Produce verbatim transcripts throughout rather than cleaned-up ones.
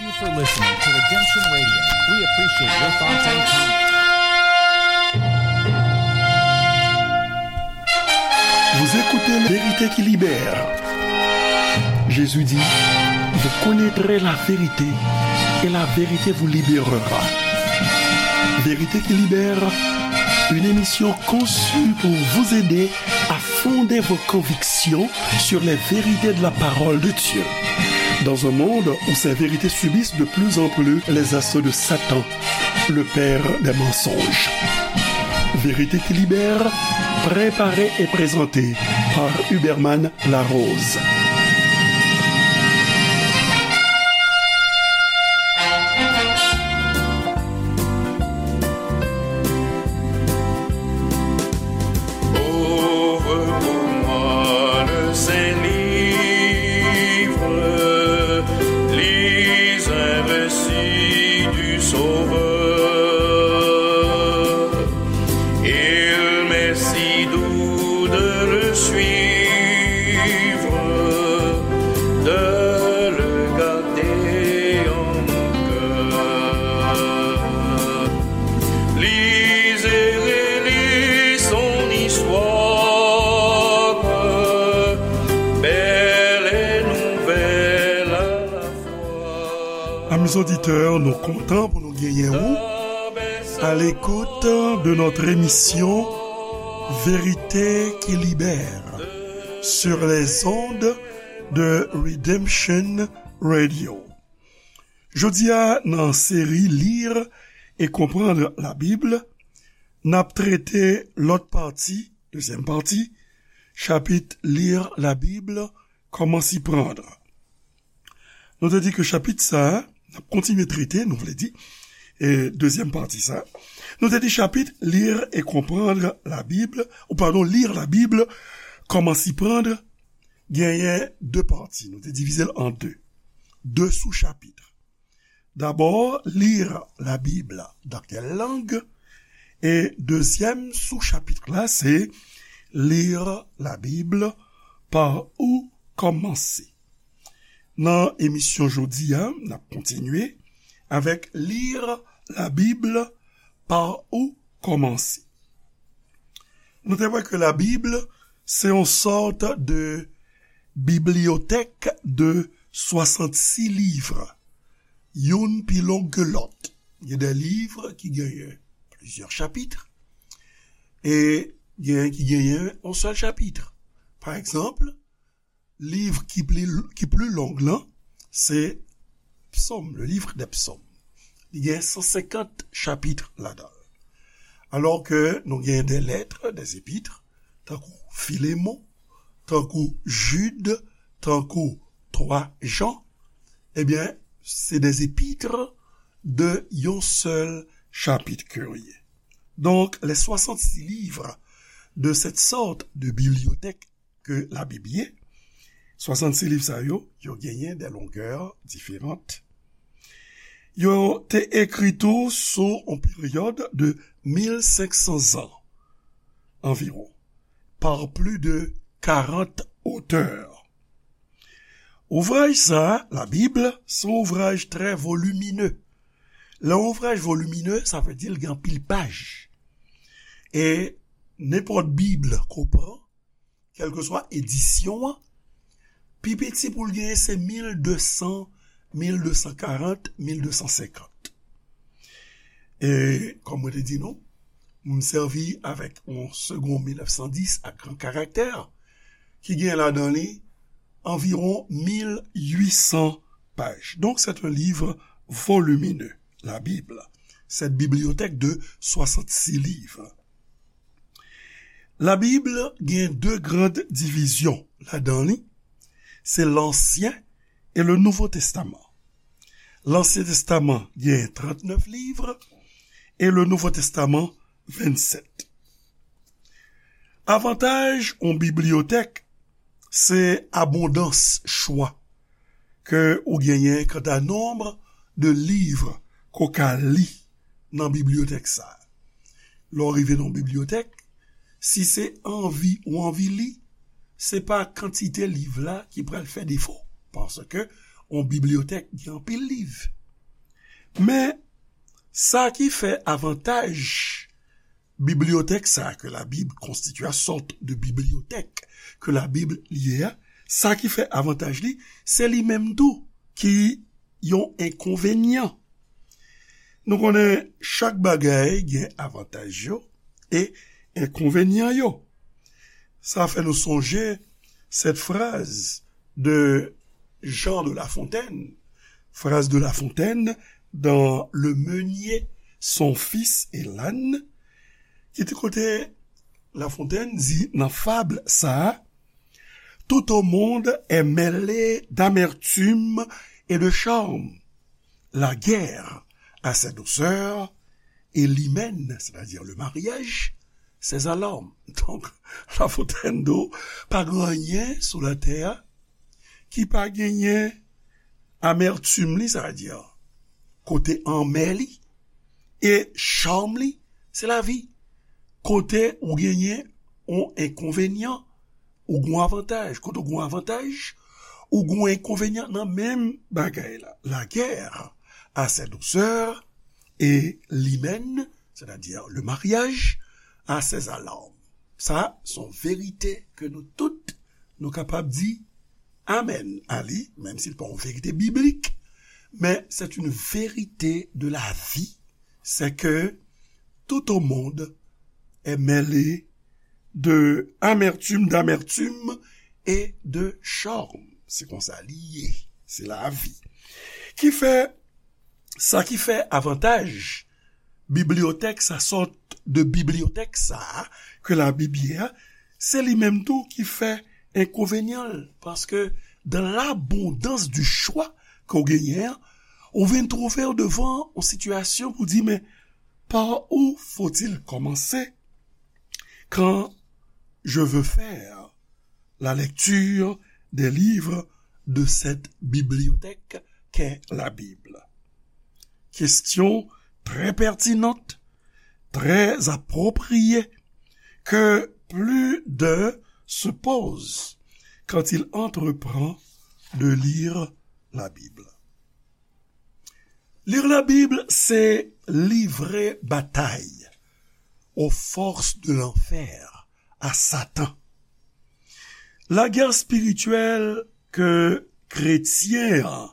Thank you for listening to Redemption Radio. We appreciate your thoughts and comments. Vous écoutez Vérité qui libère. Jésus dit, vous connaîtrez la vérité et la vérité vous libérera. Vérité qui libère, une émission conçue pour vous aider à fonder vos convictions sur les vérités de la parole de Dieu. Dans un monde où ces vérités subissent de plus en plus les assauts de Satan, le père des mensonges. Vérité qui libère, préparée et présentée par Huberman Larose. Ouvre pour moi le saint livre, lis un récit du Sauveur. Il m'est si doux de le suivre, de le garder en mon cœur. Lis et relis son histoire, belle et nouvelle à la fois. Amis auditeurs, nou kontan pou nou genyen ou à l'écoute de notre émission Vérité qui libère sur les ondes de Redemption Radio. Jodi a, nan seri Lire et comprendre la Bible, n ap trete lòt pati, dezyèm pati, chapit Lire la Bible, comment s'y prendre. Nou te di ke chapit sa a, n ap kontinye trete, nou vle di, e dezyèm pati sa a. Nou te di chapit Lire et comprendre la Bible, ou padon, Lire la Bible, comment s'y prendre, genyen de pati. Nou te divize l an de. De sou chapit. D'abord, lire la Bible dans quelle langue? E dezyèm sou chapit la, se lire la Bible, par où commencer? Nan emisyon jodi a, n ap kontinye avèk lire la Bible, par où commencer? Nou te wè ke la Bib se yon sòt de bibliyotèk de swasannsis liv, youn pi long ke lòt. Gen de liv ki genyen plizyè chapit, e gen ki genyen yon sèl chapit. Pa egzanp, liv ki pli, ki pli long lan, se Psaume, le livre des Psaumes. Li gen san senkant chapit ladan l. Alò ke nou gen de lèt, des épîtres, tankou Filemon, tankou Jid, tankou twa Jan, ebyen, se des épîtres de yon sèl chapit ke yo ye. Donc, les soixante-six livres de cette sorte de bibliothèque ke Labib ye, swasannsis liv sa yo, yo genyen de longè diferan. Yo te ekri tou sou yon peryòd de mil senk san zan anviwon, par plis de karant otè. Ouvraj sa a, Labib, se yon ouvraj trè volimine. Lè yon ouvraj volimine, sa vle di l gen anpil paj. E nenpòt Bib ke w pran, kèlkeswa edisyon an, pi piti pou l genyen se mil de san, mil de san karant, mil de san senkant. E, kòm mwen te di nou, m sèvi avèk yon Segond mil nèf san dis ak gran karaktè, ki gen ladan li anviwon mil uit san paj. Donc, c'est un livre volumineux, la Bible, cette bibliothèque de soixante-six livres. Labib gen de gran divizyon ladan li, se Lansyen e le Nouvo Testaman. Lansyen Testaman gen trannèf liv e le Nouvo Testaman vennsèt. Avantaj yon bibliyotèk, se abondans chwa ke ou genyen kanta nonb de liv ke w ka li nan bibliyotèk sa a. Lè w rive nan yon bibliyotèk, si se anvi ou anvi li, se pa kantite liv la ki pral fè defo, paske yon bibliyotèk gen anpil liv. Men, sa ki fè avantaj bibliyotèk sa a ke Labib konstitye a, sòt de bibliyotèk ke Labib li ye a, sa ki fè avantaj li, se li menm tou ki yon enkonvenyan. Nou konnen chak bagay gen avantaj yo e enkonvenyan yo. Sa fè nou sonje cette phrase de Jean de La Fontaine, phrase de La Fontaine dans Le Meunier, son fils et l'âne, ki te kote La Fontaine di nan fab sa a, tout au monde est mêlé d'amertume et de charme. La guerre a ses douceurs et l'hymen, c'est-à-dire le mariage, ses alarmes. Donk, La Fontaine di w, pa gen anyen sou latè a ki pa genyen amètim li, sa vle di kote anmè li, e cham li, se lavi. Kote ou genyen yon enkonvenyan, ou gen yon avantaj. Kote ou gen yon avantaj, ou gen yon enkonvenyan nan menm bagay la. La guerre a ses douceurs et l'hymen, c'est-à-dire le mariage, a ses alarmes. Sa, se yon verite ke nou tout, nou kapab di amèn a li, menm si l pa yon verite biblik, men c'est une vérité de la vie, c'est que tout au monde est mêlé de amertume, d'amertume et de charme. Se konsa li ye. Se lavi. Ki fè, sa ki fè avantaj bibliyotèk sa, sòt de bibliyotèk sa a, ke Labib ye a, se li menm tou ki fè enkonvenyan l. Paske dans l'abondance du choix ke w genyen an, ou vin twouve w devan yon sitiyasyon pou di, men par où faut-il commencer quand je veux faire la lecture des livres de cette bibliothèque qu'est la Bible? Question très pertinente, très appropriée, que plus d'un se pose quand il entreprend de lire la Bible. Lire la Bible, c'est livrer bataille aux forces de l'enfer, à Satan. Lagè espirityèl ke kretyen an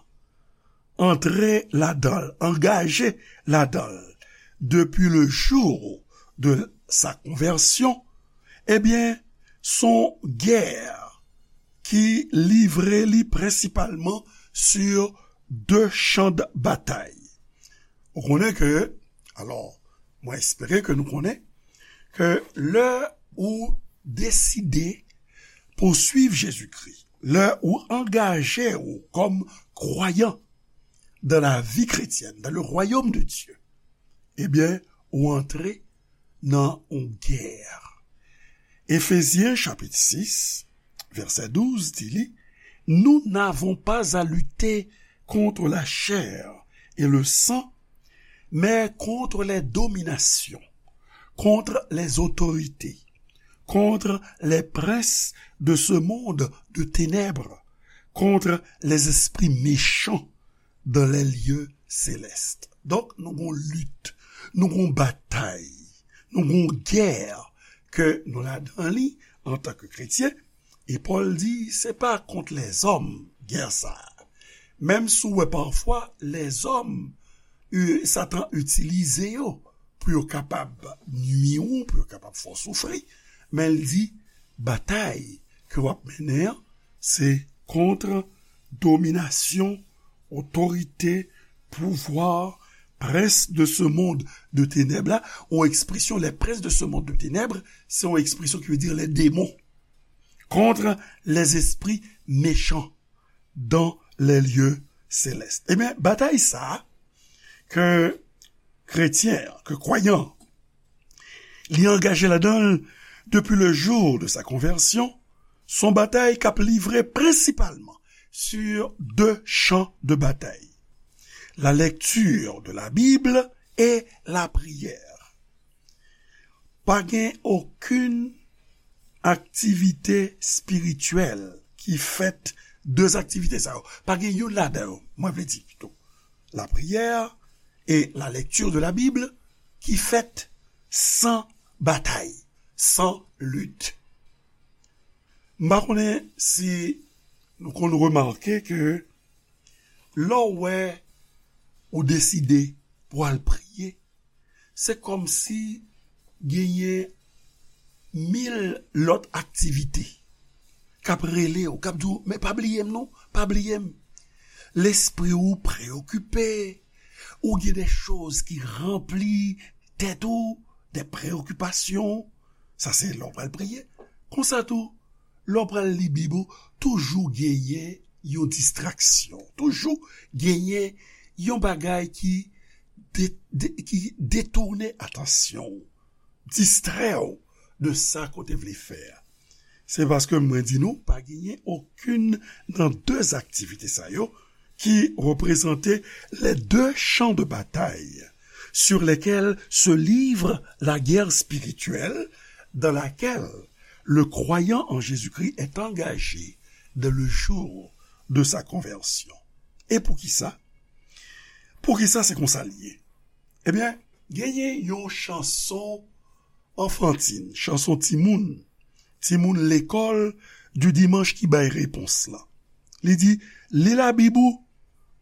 antre ladan l, angaje ladan l, depi le jou de sa konvèsyon, ebyen, se yon gè ki livre li prensipalman sur de chan de batay. Ou konnen ke, alò, mwen espere ke nou konnen ke lè ou deside pou swiv Jezikri, lè ou angaje ou kòm kwayan dans la vie chrétienne, dans le royaume de Dieu, ebyen, ou antre nan yon gè. Efezyen chapit sis, vèsè douz di li, nous n'avons pas à lutter contre la chair et le sang, mais contre les dominations, contre les autorités, contre les princes de ce monde de ténèbres, contre les esprits méchants dans les lieux célestes. Donk, nou gon lit, nou gon batay, nou gon gè ke nou ladan li antanke kretyen. E Pòl di, se pa kont lèzòm gè sa a. Menm si w wè pafwa lèzòm, e, Satan itilize yo pou yo kapab nui ou, pou yo kapab fè w soufri, men l di, batay ke w ap mennen an, se kont dominasyon, otorite, pouvwa, prince de ce monde de ténèbres la, yon ekspresyon, les princes de ce monde de ténèbres, se yon ekspresyon ki vle di les démons, contre les esprits méchants dans les lieux célestes. Ebyen, batay sa a, ke kretyen an, ke kwayan an, li angaje ladan l depi le jou de sa konvèsyon, se yon batay k ap livre prensipalman sur de chan de batay, la lecture de la Bible et la prière. Pa gen okenn aktivite espirityèl ki fèt De aktivite sa yo, pa gen youn ladan yo, mwen vle di pito, la prière et la lecture de la Bible, ki fèt san batay, san lit. M pa konnen si nou konn remake ke lè w wè ou deside pou al priye, se kòmsi genyen mil lòt aktivite k ap rele w, k ap di w, men pa bliye m non, pa bliye m. Lespri w preyokipe, ou gen de choz ki ranpli tèt ou, de preyokipasyon. Sa se lè w pral priye. Konsa tou, lè w pral li Bib ou, toujou genyen yon distraksyon, toujou genyen yon bagay ki de, de, ki detounen atansyon w, distrè w de sa ke w te vle fè a. Se paske mwen di nou, pa genyen okenn nan de aktivite sa yo ki reprezante les deux champs de bataille sur lesquels se livre la guerre spirituelle dans laquelle le croyant en Jésus-Christ est engagé dès le jour de sa conversion. E poukisa? Poukisa se konsa l ye? Ebyen, genyen yon chanson anfantin, chanson timoun, timoun lekòl di dimanch ki bay repons lan. Li di, li Labib ou,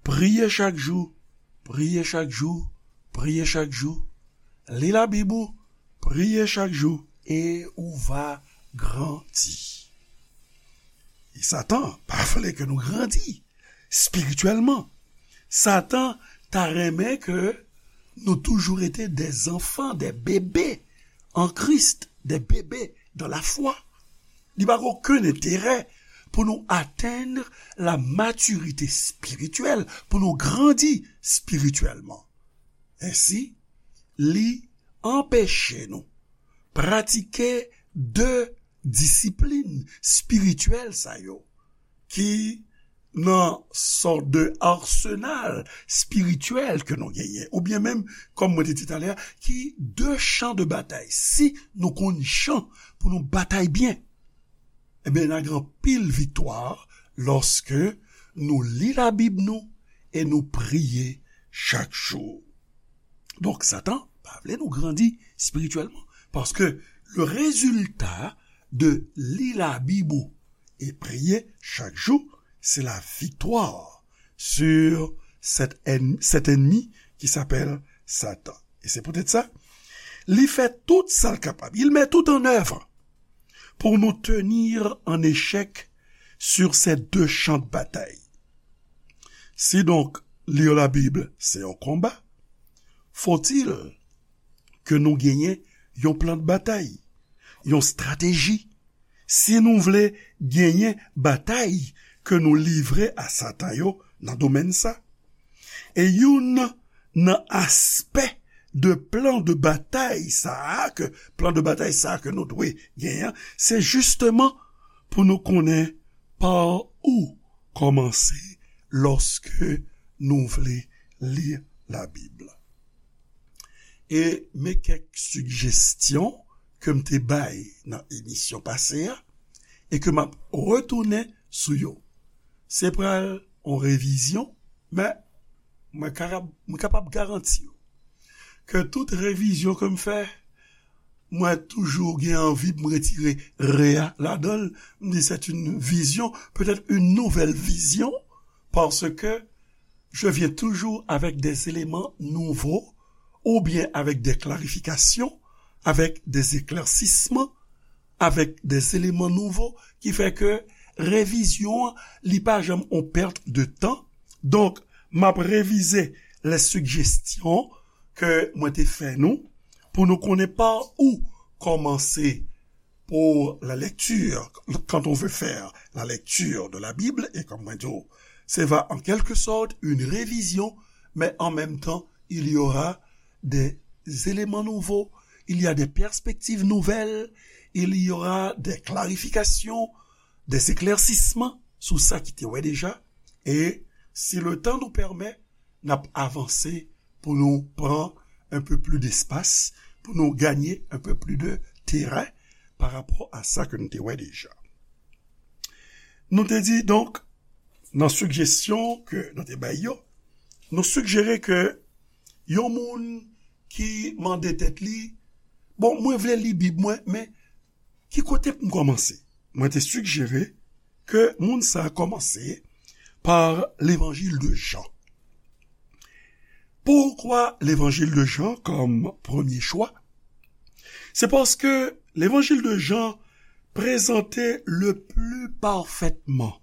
priye chak jou, priye chak jou, priye chak jou. Li Labib ou, priye chak jou, e ou va grandi. E Satan pa vle ke nou grandi espirityèlman. Satan ta renmen ke nou toujou rete des enfants, des bébés en Christ, des bébés dans la foi. Li pa gen okenn enterè pou nou atenn la matirite espirityèl, pou nou grandi espirityèlman. Ensi, li anpeche nou pratike de disiplin espirityèl sa yo ki nan sòt de arsenal espirityèl ke nou genyen, oubyen menm, kòm mwen te di talè a, ki de chan de batay. Si nou konn jan pou nou batay byen, ebyen, n a gen anpil viktwa lòske nou li Labib nou e nou priye chak jou. Donk, Satan pa vle nou grandi espirityèlman, paske le résultat de li Labib ou e priye chak jou, c'est la victoire sur cet ennemi, cet ennemi qui s'appelle Satan. Et c'est peut-être ça. Li fè tout sa l kapab. Il met tout en œuvre pour nous tenir en échec sur ces deux champs de bataille. Si donk, lire la Bible, c'est un combat, faut-il ke nou genyen yon plan de batay, yon estrateji, si nou vle genyen batay ke nou livre a Satan yo nan domèn sa. E youn nan aspè de plan de batay sa a, ke plan de batay sa a ke nou dwe genyen, se jisteman pou nou konnen pa ou kòmanse lòske nou vle li Labib. E men kèk sijesyon ke m te bay nan emisyon pase a e ke m ap retounen sou yo. Se pral yon revizyon, men mwen kapab, mwen kapab garanti w ke tout revizyon ke m fè, mwen toujou gen anvi pou m retire re a ladan l. M di, c'est une vision, peut-être une nouvelle vision, parce que je viens toujours avec des éléments nouveaux, ou bien avec des clarifications, avec des éclaircissements, avec des éléments nouveaux, ki fè ke revizyon an, li pa janm yon pèt de tan. Donk, m ap revize les suggestions ke mwen te fè nou, pou nou konnen pa ou kòmanse pour la lecture, quand on veut faire la lecture de la Bible, et comme mwen di w, se va en quelque sorte une révision, mais en même temps, il y aura des éléments nouveaux, il y a des perspectives nouvelles, il y aura des clarifications, des éclaircissements sou sa ki te wè deja. E si le temps nous permet, n ap avanse pou nou pran un peu plus d'espace, pou nou gagner un peu plus de terrain par rapport à sa ke nou te wè deja. Nou te di, donk, Nan sigjesyon ke nou te bay yo, nou sigjere ke yon moun ki mande tèt li, bon, mwen vle li Bib mwen, men ki kote pou m kòmanse? Mwen te sigjere ke moun sa a kòmanse pa Levanjil de Jan. Poukwa Levanjil de Jan kòm premye chwa? Se paske Levanjil de Jan prezante le pli pafètman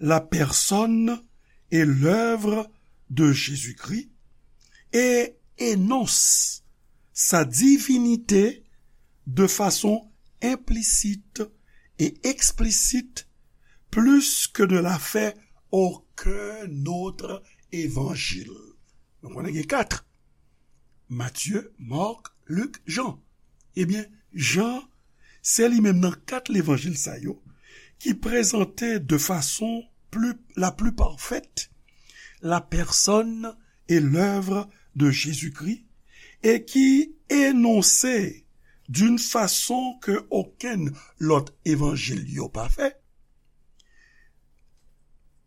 la personne et l'œuvre de Jésus-Christ et énonce sa divinité de façon implicite et explicite plus que ne l'a fait aucun autre évangile. Nou konnen gen kat. Matye, Mak, Lik, Jan. Ebyen, Jan, se li menm nan kat levanjil sa yo ki prezante de fason pli, la pli pafèt la personne et l'œuvre de Jésus-Christ et qui énonce d'une façon que aucun lot evanjil yo pa fè,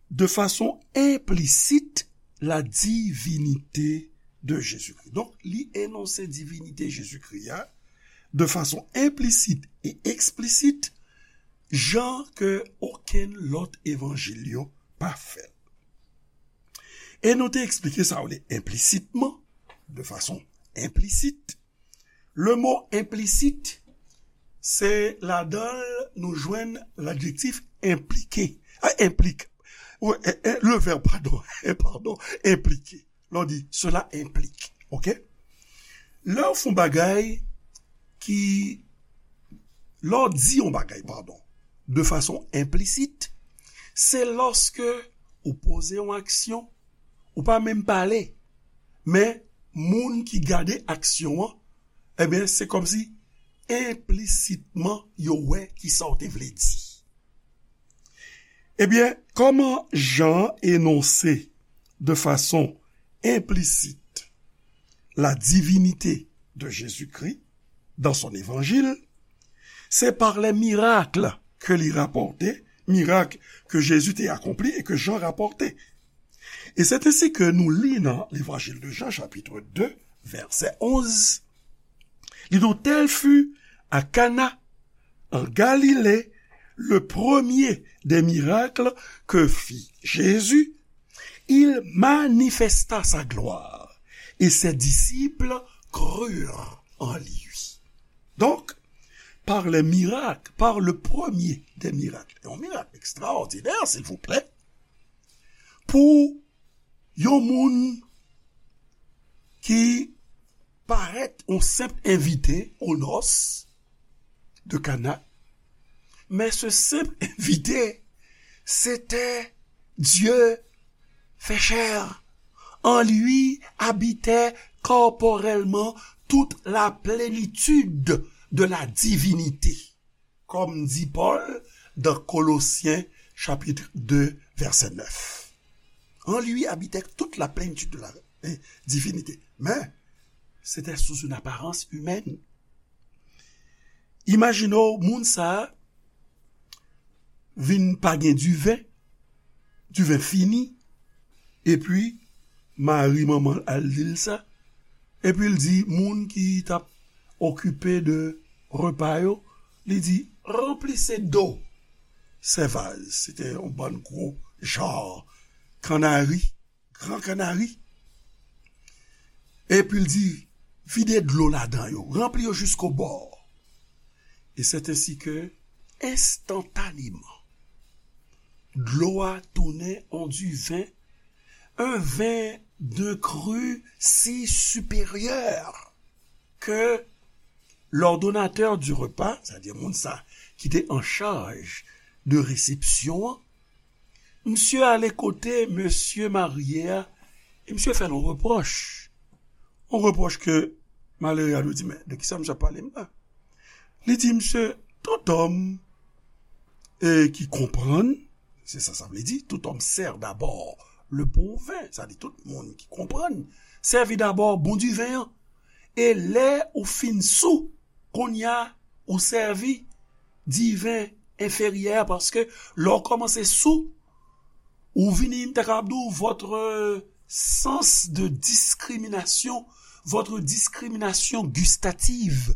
de fason enplisit la divinite de Jezikri. Donk, li enonse divinite Jezikri a de fason enplisit e eksplisit, jan ke okenn lòt evanjil yo pa fè l. E nou te eksplike sa w le enplisitman, de fason enplisit. Le mo enplisit, se ladan l nou jwenn ladjektif enplike. A, enplik. Wi, e, e, le vèb, padon, e, padon, enplike. Lè w di, cela implique. Oke? Lè w fè yon bagay ki, lè w di yon bagay, padon, de fason enplisit, se lòske ou poze yon aksyon, ou pa menm pale, men moun ki gade aksyon an, ebyen, se kòmsi enplisitman yo wè kisa w te vle di. Ebyen, kòman Jan enonse de fason enplisit la divinité de Jésus-Christ dans son évangile, c'est par les miracles que li rapòte, mirak ke Jezi te akonpli e ke Jan rapòte. Et c'est ainsi que nous li nan l'Évangile de Jean, chapitre deux, verset onze, li di, tel fut à Cana, en Galilée, le premier des miracles que fit Jésus, il manifesta sa gloire, et ses disciples crurent en lui. Donc, par les miracles, par le premier des miracles, un miracle extraordinaire, s'il vous plaît, pou yon moun ki parèt yon senp envite o nos de Kana, men se senp envite, se te Dye fè chè. En lui habitait corporellement toute la plénitude de la divinité, comme dit Paul dans Colossiens chapitre deux, verset neuf. En lui habitait toute la plénitude de la, eh, divinité. Mais c'était sous une apparence humaine. Imajine w, moun sa a vin pa gen diven, diven fini, epi Mari, manman l, al di l sa, epi l di moun ki t ap okipe de repa yo, li di, ranpli se do sèvaz, se te yon bann gwo jan kannari, gran kannari, epi l di, vide dlo ladan yo, ranpli yo jiskobò. Et c'est ainsi que, instantanément, dlo a tounen an diven, un vin d'un cru si supérieur que l'ordonnateur du repas, c'est-à-dire moun sa ki te an chaj de resepsyon an, misye ale kote mesye marye a, e misye fè l yon repwòch. Yon repwòch ke malere a dwe di, men de kisa misye ap pale m la? Li di, misye, tout homme, eh, qui comprend, se sa sa vle di, tout homme sert d'abord le bon vin, sa di tout moun ki konprann, sèvi dabò bon diven an. E lè ou fin sou, kounye a ou sèvi diven enferyè, paske lè w kòmanse sou, Ou vini, m ta kapab di w, votre sens de discrimination, votre discrimination gustative,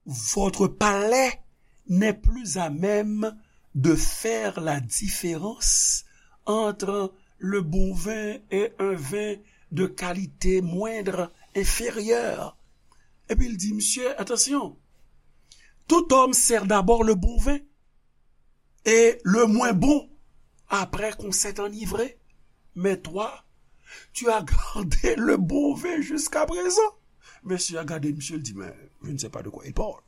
votre palais n'est plus à même de faire la différence entre le bon vin et un vin de qualité moindre, inférieure. Epi l di, mesye, attention, tout homme sert d'abord le bon vin et le moins bon après qu'on s'est enivré. Mais toi, tu as gardé le bon vin jusqu'à présent. Mesye a gade misye, l di, mais je ne sais pas de quoi il parle.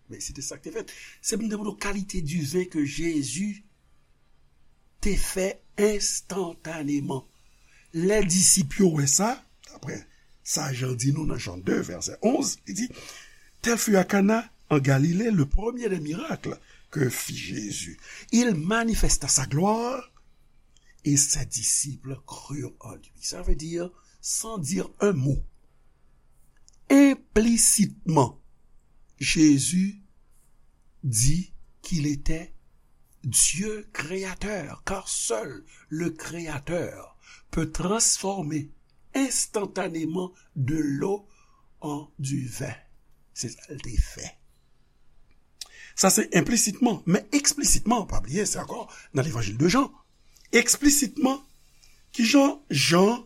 Men se te sa k te fèt. Se pou m te montre w kalite diven ke Jezi te fè enstantaneman. Lè disip yo wè sa, daprè sa Jan di nou nan Jan de, vèsè onz, li di, Tel fut à Cana en Galilée le premier des miracles que fit Jésus. Il manifesta sa gloire et ses disciples crurent en lui. Ça veut dire, sans dire un mot, implicitement, Jésus dit qu'il était Dieu créateur, car seul le Créateur peut transformer instantanément de l'eau en du vin. Se sa l te fè. Sa se enplisitman, men eksplitman, pa bliye, se ankò nan levanjil de Jan. Eksplitman, kijan Jan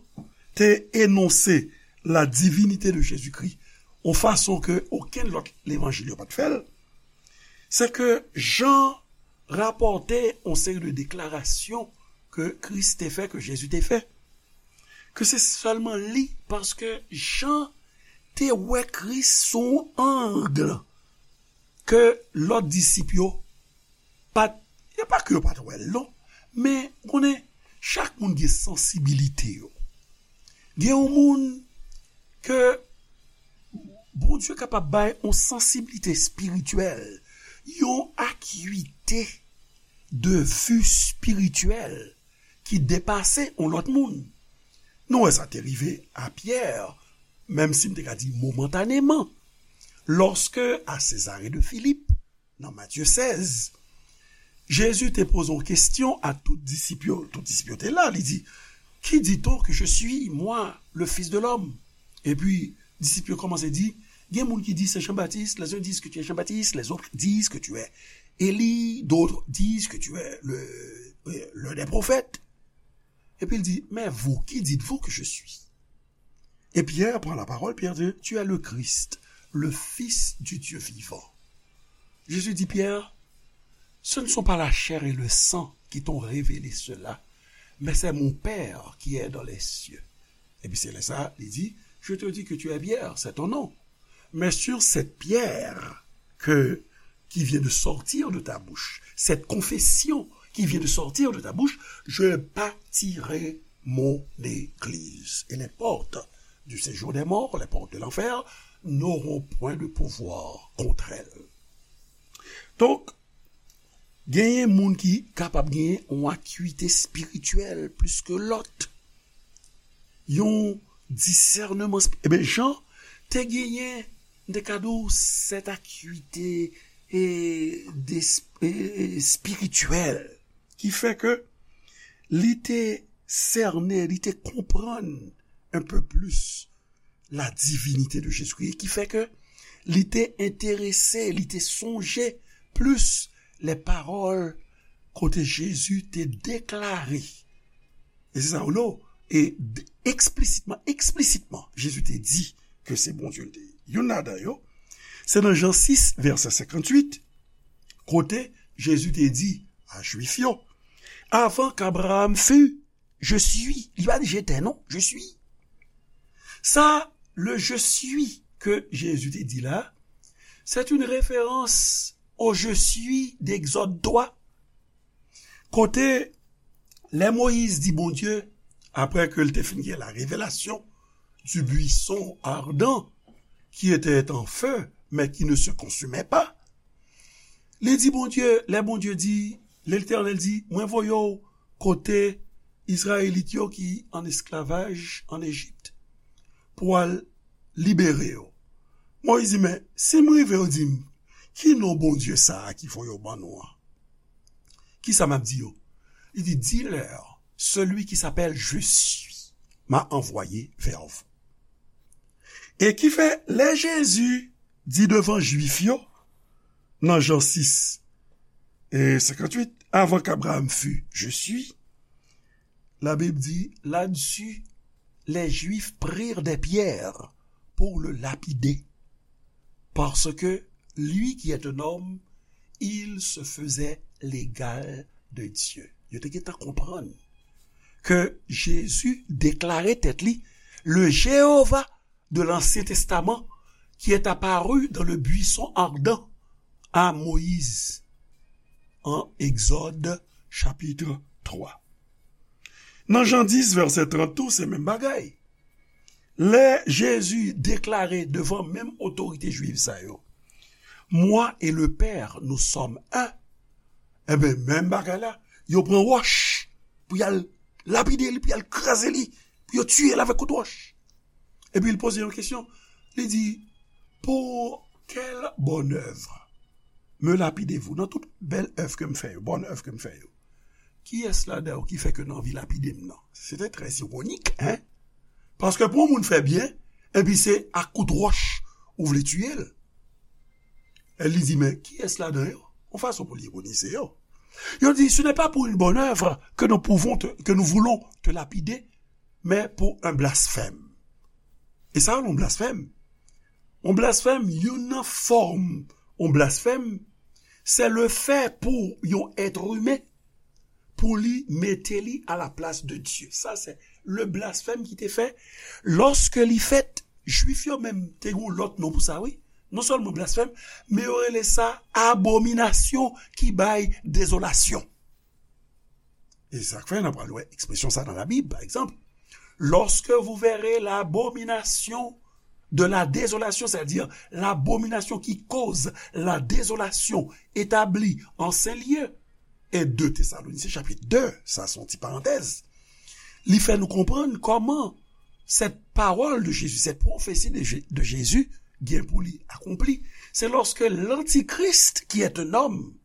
te enonse la divinite de Jezikri, yon fason ke okenn lòt levanjil yo pa t fè l, se ke Jan rapòte yon seri de deklarasyon ke Kris te fè, ke Jezi te fè, ke se sèlman li, paske Jan te wè Kris sou yon ang ke lòt disip yo pa t, e pa ke yo pa t wè l non, men konnen chak moun gen sansibilite yo. Gen yon moun ke Bondye kapab bay yon sansibilite espirityèl, yon akite de vi espirityèl ki depase yon lòt moun. Nou wè sa te rive a Pyè, menm si m te ka di momantaneman, lòske a Sezare de Filip, nan Matye sèz, Jezi te poze yon kesyon a tout disip yo. Tout disip yo te la. Li di, Qui dit-on que je suis, moi, le Fils de l'homme? Epi, disip yo kòmanse di, Gen moun ki di se Jan Batis, les uns disent que tu es Jean-Baptiste, les autres disent que tu es Élie, d'autres disent que tu es le, euh, l'un des prophètes. Epi l di, Mais vous, qui dites-vous que je suis? Et Pierre prend la parole, Pierre dit, Tu es le Christ, le Fils du Dieu vivant. Jésus dit, Pierre, ce ne sont pas la chair et le sang qui t'ont révélé cela, mais c'est mon Père qui est dans les cieux. Epi se lè sa, li di, Je te dis que tu es Pierre, c'est ton nom. Mais sur cette pierre que, qui vient de sortir de ta bouche, cette confession qui vient de sortir de ta bouche, je bâtirai mon église. Et les portes du séjour des morts, les portes de l'enfer, n'auront point de pouvoir contre elle. Donk, genyen moun ki kapab genyen yon akite espirityèl plis ke lòt. Yon disèneman espi-, eben, Jan te genyen, m te ka di w, sèt akite e, de, e, e, espirityèl ki fè ke li te sène, li te konprann un peu plus la divinité de Jésus-Christ, ki fè ke li te enterese, li te sonje plis lè pawòl kote Jezi te deklare. E se sa, ou non? E d-, eksplitman, eksplitman, Jezi te di ke se Bondye l te ye. Youn ladan yo, se nan Jan sis, vèsè senkantuit, kote Jezi te di a Jwif yo, Avant qu'Abraham fût, je suis. Li pa di j'étais, non, je suis. Sa, le je suis ke Jezi te di la, c'est une référence au je suis d'Exode trois. Kote, lè Moyiz di Bondye, apre ke l te fin gen la révélation du buisson ardent qui était en feu, mais qui ne se consumait pas, li di Bondye, lè Bondye di, Letènèl di, Mwen voye w kote Izrayelit yo ki an esklavaj an Ejip pou w al libere yo. Moyiz di, Men, si m rive yo di m, ki non Bondye sa a ki voye w ban nou an? Kisa m ap di yo? Li di, Dis-leur, celui qui s'appelle Je suis m'a envoyé vers vous. E ki fè, lè Jezi di devan Jwif yo, nan Jan sis e senkantuit, avant qu'Abraham fût, je suis, la Bible dit, là-dessus, les Juifs prirent des pierres pour le lapider, parce que lui qui est un homme, il se faisait l'égal de Dieu. Yo te gentan konprann ke Jezi deklare tèt li le Jewova de l'Ancien Testament qui est apparu dans le buisson ardent à Moïse, en Exode chapitre trois. Nan Jan dis, vèsè trant tou, se menm bagay. Lè Jezi deklare devan menm otorite jwiv sa yo, Moi et le Père, nous sommes un, enben, menm bagay la, yo pran wòch pou y al lapide li, pou y al kraze li, pou yo tiye l avèk kout wòch. Epi l poze yon kesyon. Li di, pour quelle bonne œuvre me lapidez-vous? Nan tout bèl èv ke m fè yo, bòn èv ke m fè yo, kiyès ladan yo ki fè ke n anvi lapide m nan? Se te trè iwonik, en? Paske pou yon moun fè byen, epi se ak kout wòch ou vle tiye l. E li di, men kiyès ladan yo? Yon fason pou l ironize yo. Yo di, ce n'est pas pour une bonne œuvre que nous pouvons te, que nous voulons te lapider, mais pour un blasphème. E sa, yon blasfèm. Yon blasfèm, youn nan fòm yon blasfèm, se le fè pou yon èt imen, pou li mete li a la plas de Dye. Sa se le blasfèm ki te fè. Lòske li fèt, Jwif yo menm te gen yon lòt non pou sa, wi. Non sèlman blasfèm, men yo rele sa abominasyon ki bay dezolasyon. E sa k fè n ap pral wè ekspresyon sa nan Labib, pa egzanp, lorsque vous verrez l'abomination de la désolation, c'est-à-dire l'abomination qui cause la désolation établie en saint lieu, e de Tesalonisyen chapit de, sa se yon ti parantèz, li fè nou konprann kòman cette parole de Jésus, cette prophétie de, Jé- de Jésus, gen pou li akonpli. C'est lorsque l'Antichrist, qui est un homme,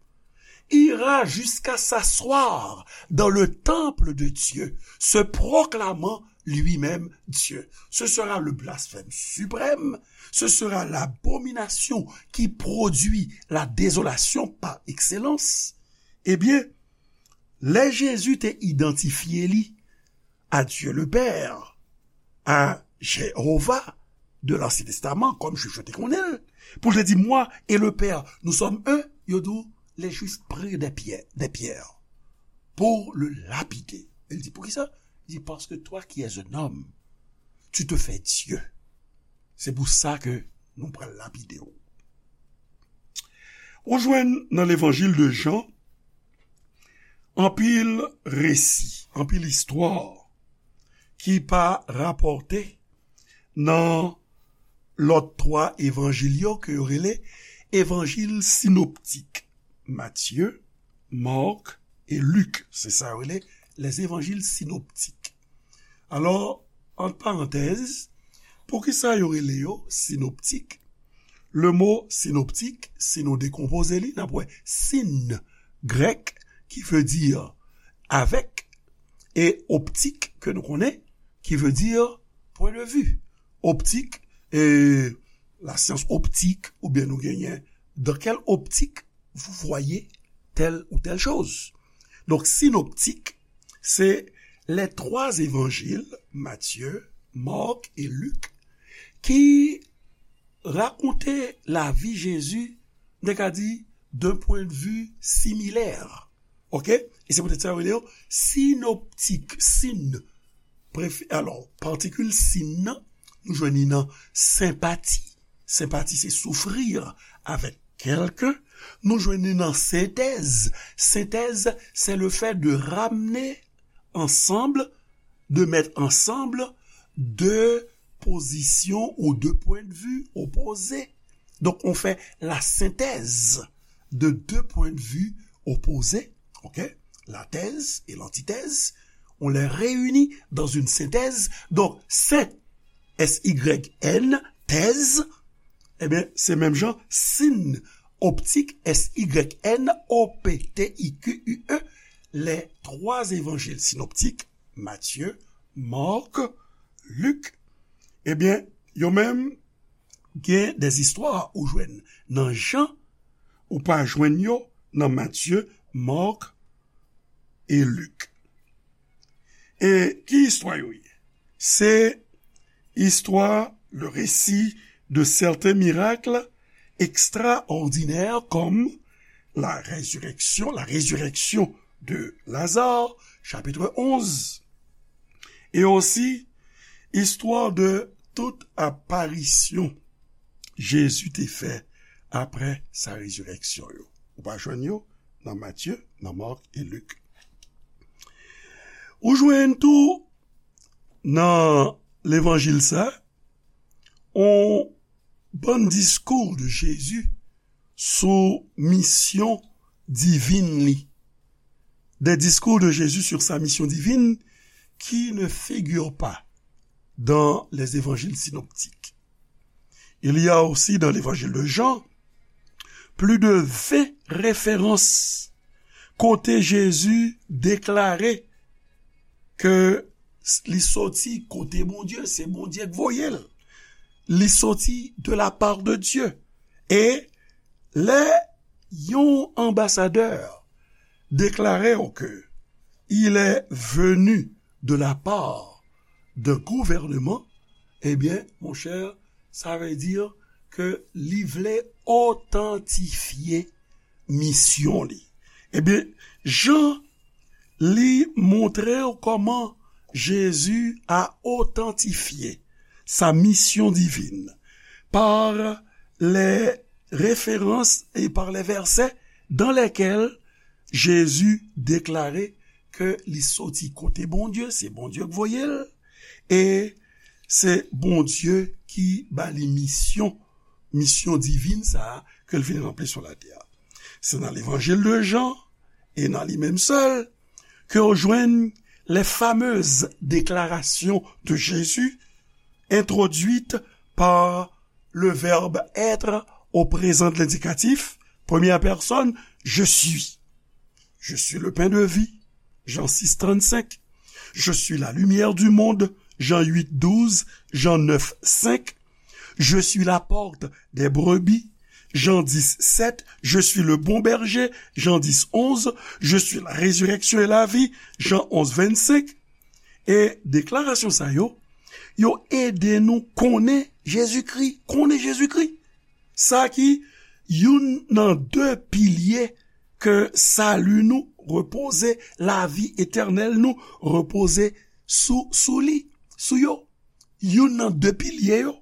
ira jusqu'à s'asseoir dans le temple de Dieu, se proclamant lui-même Dieu. Ce sera le blasphème suprême, ce sera l'abomination qui produit la désolation par excellence. Ebyen, lè Jezi te idantifye li à Dieu le Père, à Jéhovah de l'Ancien Testament, kòm Jwif yo te konnen l, pou l te di, moi et le Père, nous sommes un, yo di w, les Juifs prirent des pierres, des pierres pour le lapider. Li di, poukisa? Li di, parce que toi qui es un homme, tu te fais Dieu. Se pou sa ke nou pral lapide w. Ou jwenn nan levanjil de Jan, anpil resi, anpil istwa ki pa rapòte nan lòt twa evanjil yo ke yo rele evanjil sinoptik, Matye, Mak e Lik. Se sa yo rele les évangiles synoptiques. Alò, ant parantèz, poukisa yo rele yo sinoptik? Le mo sinoptik, si nou dekonpoze li, n ap wè sin grèk ki vle di avèk, e optik ke nou konnen ki vle di point de vue. Optik, e la science optique, oubyen nou genyen dans quelle optique vous voyez telle ou telle chose. Donk, sinoptik, se les trois évangiles, Matthieu, Marc et Luc, ki rakonte lavi Jezi, nou ka di, d'un point de vue similaire. Oke? E se poutèt sa yo rele yo sinoptik. Sin, prefi-, alò, patikil sin nan, nou jwenn li nan senpati. Senpati, se souffrir avec quelqu'un. Nou jwenn li nan sentèz. Sentèz, c'est le fait de ramener ensemble, de mettre ensemble deux positions ou deux points de vue opposés. Donc, on fait la synthèse de deux points de vue opposés, ok? La thèse et l'antithèse, on les réunit dans une synthèse. Donc, syn, S Y N, thèse, ebyen, se menm jan, sin, optique, S Y N O P T I Q U E, les trois évangiles synoptiques, Matye, Mak, Lik, ebyen, yo menm gen des istwa ou jwenn nan Jan, ou pa jwenn yo nan Matye, Mak e Lik. E ki istwa yo ye? Se istwa, le récit de certains miracles extraordinaires comme la résurrection, la résurrection de Lazare, chapitre onze, e osi istwa de tout aparisyon Jezi te fè apre sa rezireksyon yo. Ou pa jwenn yo nan Matye, nan Mak e Lik. Ou jwenn tou nan levanjil sa, on bann diskou de Jezi sou misyon divin li. Des discours de Jésus sur sa mission divine qui ne figurent pas dans les évangiles synoptiques. Il y a aussi dans l'évangile de Jean plus de vingt références kote Jezi deklare ke li soti kote Bondye, se Bondye k voye l. Li soti de la part de Dieu. E lè yon anbasadè deklare w ke il est venu de la part d'un gouvernement, ebyen, monchè, sa vle di ke li vle otantifye misyon li. Ebyen, Jan, li montre w kòman Jezi a otantifye sa misyon divin par les références et par les versets dans lesquels Jezi deklare ke li soti kote Bondye, se Bondye k voye l, e se Bondye ki ba li misyon, misyon divin sa a ke l vin ranpli sou latè a. Se nan levanjil de Jan, e nan li menm sèl, ke w jwenn les fameuses déclarations de Jésus introduites par le verbe être au présent de l'indicatif, première personne, je suis. Je suis le pain de vie, Jean six trente-cinq. Je suis la lumière du monde, Jean huit douze, Jean neuf cinq. Je suis la porte des brebis, Jean dix sept. Je suis le bon berger, Jean dix onze. Je suis la résurrection et la vie, Jean onze vingt-cinq. E deklarasyon sa yo, yo ede nou konnen Jezikri, konnen Jezikri. Sa ki youn nan de pilye ke sali nou repoze, lavi etènèl nou repoze sou, sou li, sou yo. Youn nan de pilye yo.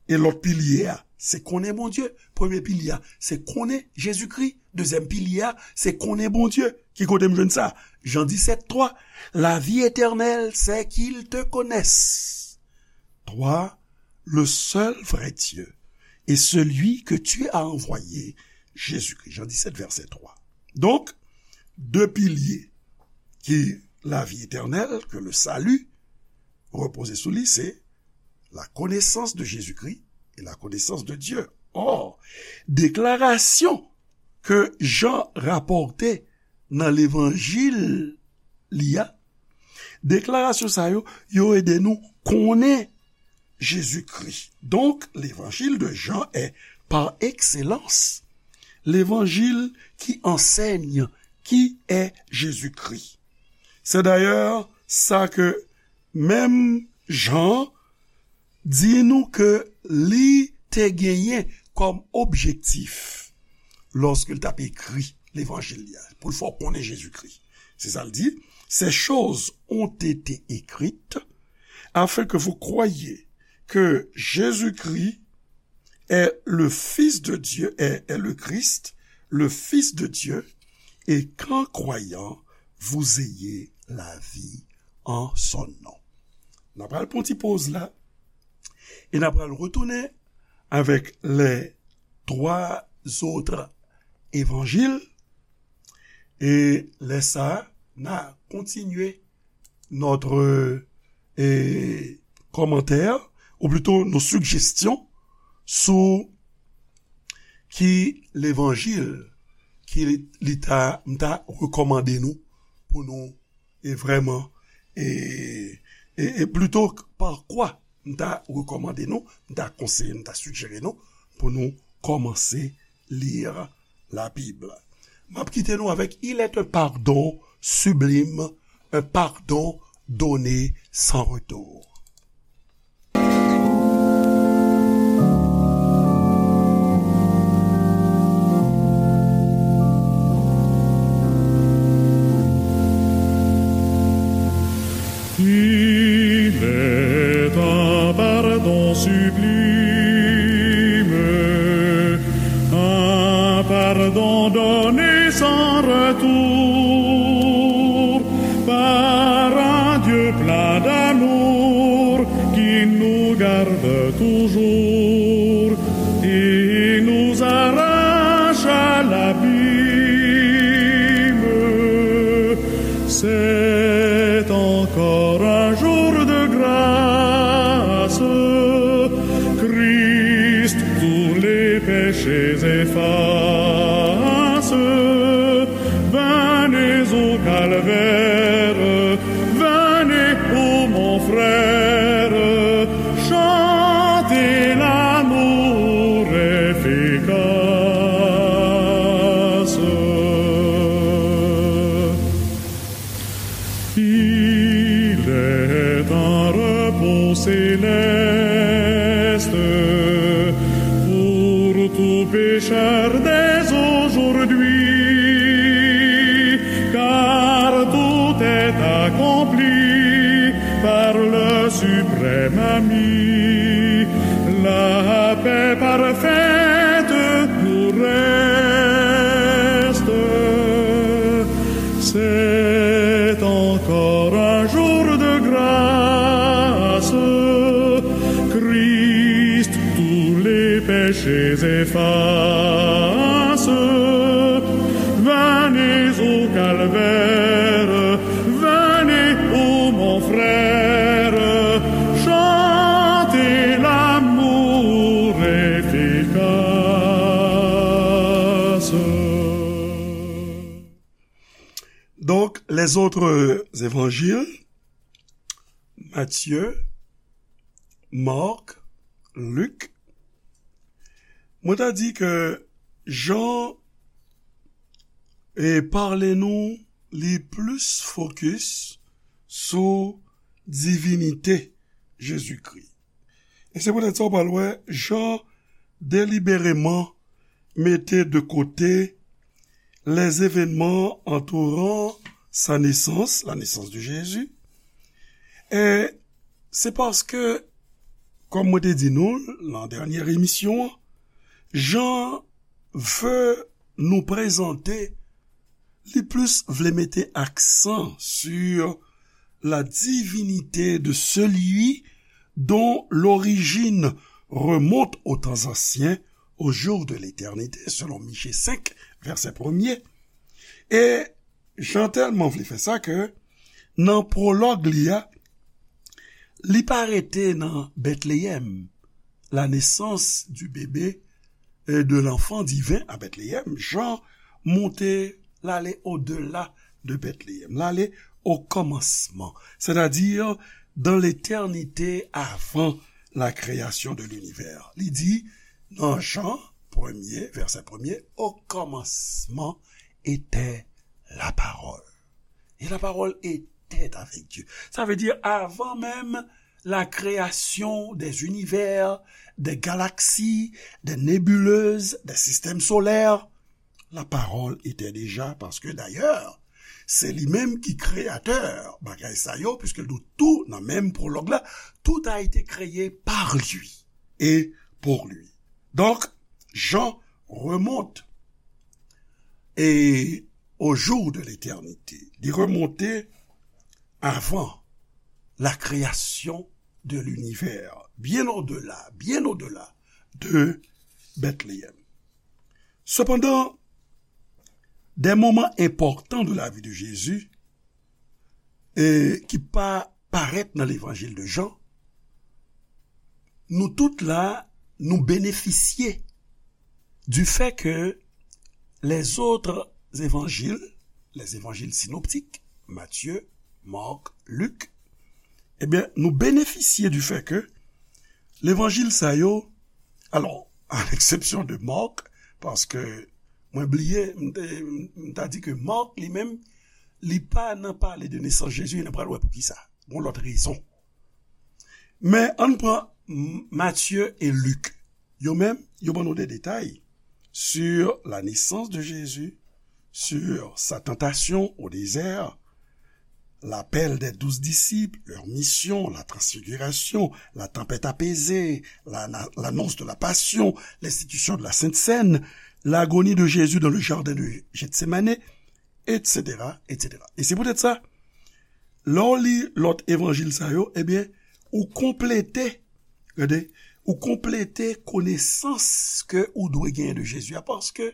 E lòt pilye a, se konnen Bondye. Premye pilye a, se konnen Jezikri. Dezyèm pilye a, se konnen Bondye. Ki kote m jwenn sa? Jan disèt twa, la vie éternelle, c'est qu'ils te connaissent, toi, le seul vrai Dieu, et celui que tu as envoyé, Jésus-Christ. Jan disèt, vèsè twa. Donk, de pilye ki lavi etènèl, ke le salut repoze sou li, se la connaissance de Jésus-Christ et la connaissance de Dieu. Or, deklarasyon ke Jan rapòte nan levanjil li a, deklarasyon sa yo, yo ede nou konnen Jezikri. Donk, levanjil de Jan est, par excellence, levanjil ki ansèy ki est Jésus-Christ. Se dayè sa ke menm Jan di nou ke li te genyen kòm objektif lòske l t ap ekri levanjil li a, pou l fè w konnen Jezikri. Se sa l di, ces choses ont été écrites afin que vous croyiez que Jésus-Christ est le Fils de Dieu, est, est le Christ, le Fils de Dieu, et qu'en croyant, vous ayez la vie en son nom. N ap pral pran ti poz la, e n ap pral retounen avèk les trois autres évangiles, e lè sa a, n a kontinye notre eh, commentaires, ou plutôt nos suggestions sou ki levanjil ki li, li ta, m ta rekòmande nou pou nou, e vrèman, e, e, e plito pa kwa m ta rekòmande nou, m ta konseye, m ta sijere nou pou nou kòmanse li Labib. M ap kite nou avèk Il est un pardon sublime, un pardon donné sans retour. Il est un pardon sublime, un pardon donné sans retour par un Dieu plein d'amour qui nous garde toujours et nous arrache à l'abîme. C'est encore un jour de grâce. Christ tous les péchés efface. Venez au calvaire, venez, ô mon frère, chantez l'amour efficace. Il est un repos céleste pour tout pécheur dès aujourd'hui, car tout est accompli par le suprême ami. La paix parfaite nous reste. C'est encore un jour de grâce. Christ tous les péchés efface. Venez au calvaire, venez, ô mon frère, chantez l'amour efficace. Donk, les autres évangiles, Matthieu, Marc, Luc, mwen ta di ke Jan e pale nou li plis fokis sou divinite Jezikri. E se poutèt sa w pral wè Jan delibereman mete de kote les événements entourant sa naissance, la naissance de Jésus. E se paske, kòm mwen te di nou nan dènyè emisyon an, Jan vle nou prezante, li plis vle mete aksan sur la divinité de celui dont l'origine remonte aux temps anciens, aux jours de l'éternité, selon Miche senk, vèsè premye. E Jan tèlman vle fè sa ke nan pwològ li a, li pa rete nan Bètleyèm, la naissance du bébé, euh, de l'enfant divin à Bethléem, Jan monte, l ale odela de Bètleyèm, l ale au commencement, c'est-à-dire dans l'éternité avant la création de l'univers. Li di nan Jan premye, vèsè premye, au commencement était la parole. Et la parole était avec Dieu. Ça veut dire, avant même la création des univers, des galaxies, des nébuleuses, des systèmes solaires, la parole était déjà, parce que d'ailleurs, c'est lui-même qui créateur bagay sa yo, puisque nou tou nan menm prolog la, tout a été créé par lui et pour lui. Donc, Jean remonte et au jour de l'éternité. Li remonte avant la création de l'univers, bien au-delà, bien au-delà de Bethléem. Cependant, des moments importants de la vie de Jésus, e ki pa parèt nan l'évangile de Jean, nou tout la, nou benefisye du fait que les autres évangiles, les évangiles synoptiques, Matye, Mak, Lik, ebyen, nou benefisye di fè ke levanjil sa yo, alò, a leksepsyon de Mak, paske mwen bliye, m te, m ta di ke Mak li menm, li pa nan pale de nesans Jezi, e n pral wè poukisa. Gon lòt rezon. Men ann pran M-, Matye e Lik. Yo menm, yo ban nou de detay sur la naissance de Jésus, sur sa tentation au désert, l'appel des douze disciples, leur mission, la transfiguration, la tempête apaisée, la, la, l'annonce de la passion, l'institution de la Sainte Seine, l'agonie de Jésus dans le jardin de Gethsemane, et cetera, et cetera. E se poutèt sa, lè w li lòt evanjil sa yo, ebyen, ou konplete, gade, ou konplete konesans ke ou dwe genyen de Jezi a, paske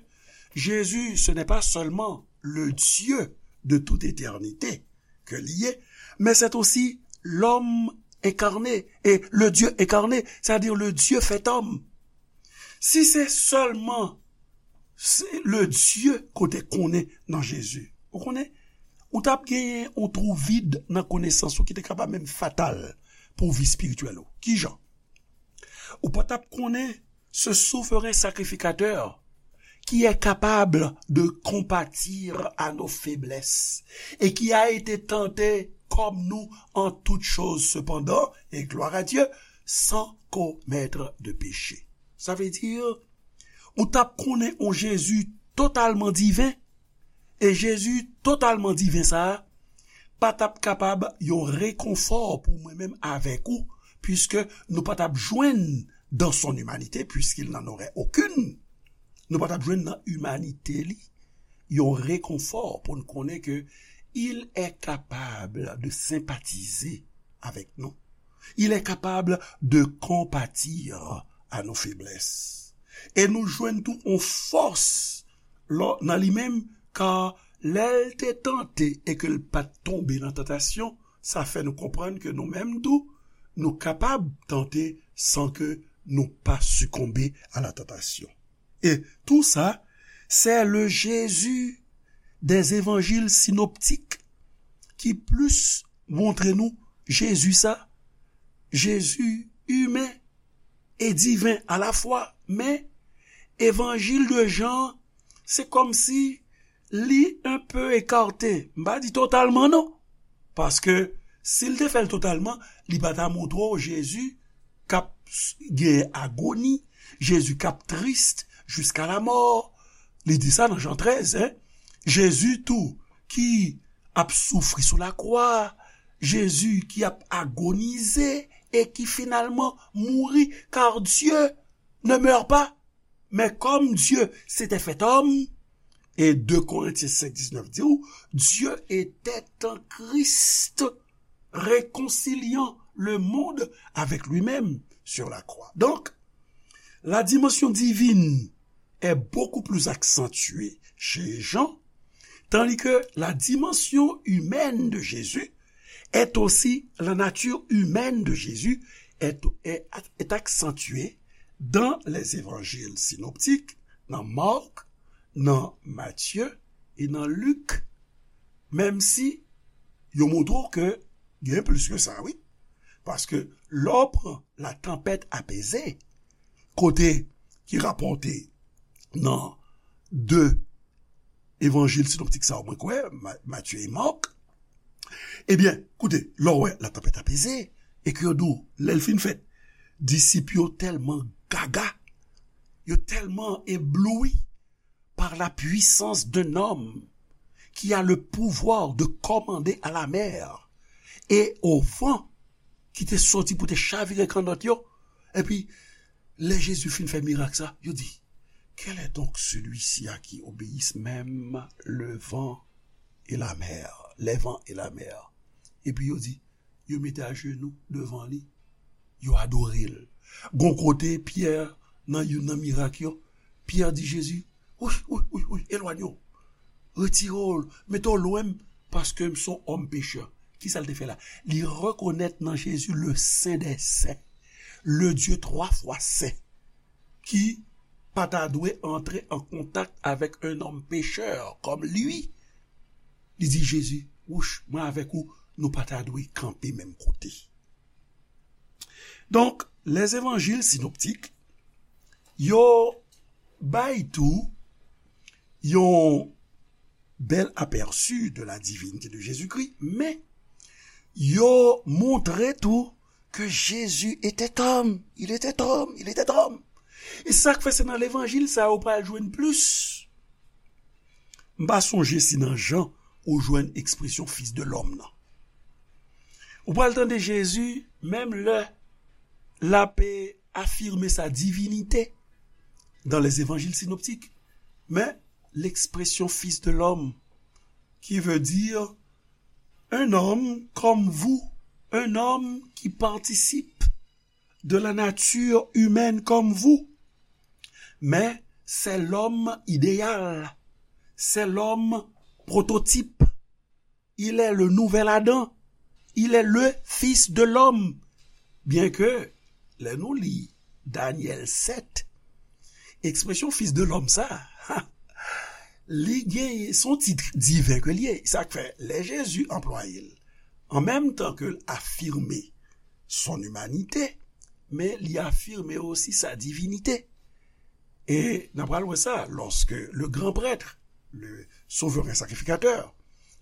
Jezi, ce n'est pas seulement le Dieu de toute éternité ke li ye, mais c'est aussi l'homme incarné, et le Dieu incarné, c'est-à-dire le Dieu fait homme. Si se sèlman se le Dye ke w te konnen nan Jezi, ou konnen, ou t ap genyen yon twou vid nan konesans ou ki te kapab menm fatal pou vi espirityèl ou. Kijan? Ou pa t ap konnen ce souverain sacrificateur qui est capable de compatir à nos faiblesses et qui a été tenté comme nous en toutes choses cependant, et gloire à Dieu, sans commettre de péché. Sa vle di, ou t ap konnen yon Jezi totalman diven, e Jezi totalman diven sa a pa t ap kapab yon rekonfò pou mwen menm avèk ou, puiske nou pa t ap jwenn dans son humanité, puisqu'il n'en aurait aucune, nou pa t ap jwenn nan imanite li yon rekonfò pou n konnen ke il est capable de sympathiser avec nous. Il est capable de compatir à nos faiblesses. E nou jwenn tou yon fòs lò, nan li menm, ka lè l te tante e ke l pa t tonbe nan tantasyon, sa fè nou konprann ke nou menm tou, nou kapab tante san ke nou pa sikonbe a la tantasyon. E tou sa, c'est le Jésus des évangiles synoptiques ki plis montre nou Jezi sa, Jezi imen e diven alafwa, men evanjil de Jan, se kòmsi li un peu écarté. M pa di totalman non, paske si l te fè l totalman, li pa ta montre w Jezi k ap s-, gen agoni, Jezi k ap tris jiska lamò. Li di sa nan Jan trèz, en. Jezi tou ki ap soufri sou lakwa, Jezi ki ap agonize e ki finalman mouri, car Dieu ne meurt pas. Mais comme Dieu s'était fait homme, et deux Corinthiens cinq dix-neuf di ou, Dieu était en Christ, réconciliant le monde avec lui-même sur la croix. Donc, la dimension divine est beaucoup plus accentuée chez Jean, tandis que la dimension humaine de Jésus est aussi, la nature humaine de Jésus est, est, est accentuée dans les évangiles synoptiques, nan Mark, nan Matye e nan Lik, menm si yo montre w ke gen plis ke sa, wi. Paske lè w pran la tempête apaisée, kote ki rapòte nan de evanjil sinoptik sa yo mwen kwè, Ma-, Matye e Mak, ebyen, koute, lè w wè la tempête apaisée, e ke yo di w, lè l fin fèt, disip yo tèlman gaga, yo tèlman ebloui par la puissance d'un homme qui a le pouvoir de commander à la mer et au vent, ki te soti pou te chavire kannòt yo. Epi, lè Jezi fin fè mirak sa, yo di, quel est donc celui-ci à qui obéissent même le vent et la mer, les vents et la mer? Epi yo di, yo mete ajenou devan li, yo adore l. Gon kote, Pyè, nan youn nan mirak yo, Pyè di Jezi, wi, wi, wi, wi, elwanye w. Retire w, mete w lwen m, paske m se yon òm pechè. Kisa l te fè la? Li rekonèt nan Jezi le Sen dè Sen, le Dye twa fwa sen, ki pa ta dwe antre an kontak avèk un homme pécheur comme lui. Li di Jezi, wouch, mwen avèk ou, nou pa ta dwe kanpe menm kote. Donk, lèzevanjil sinoptik, yo bay tou yon bèl apèsi de la divinité de Jésus-Christ, men yo montre tou ke Jésus était homme, il était homme, il était homme. E sa k fè se nan levanjil sa yo pral jwenn plis. M pa sonje si nan Jan ou jwenn ekspresyon fils de l'homme nan. Ou pral tande Jezi, menm lè l ap afime sa divinite dans les évangiles synoptiques. Men, l'expression fils de l'homme, qui veut dire un homme comme vous, un homme qui participe de la nature humaine comme vous. Mais c'est l'homme idéal, c'est l'homme prototype. Il est le nouvel Adam. Il est le fils de l'homme. Byenke, lè nou li Danyèl sèt, ekspresyon fils de l'homme sa, li gen, se yon tit diven ke l ye. Sa k fè, lè Jezi anplwaye l, an menm tan ke l afime son imanite, men li afime osi sa divinite. E n ap pral wè sa, lorsque le grand prêtre, le souverain sacrificateur,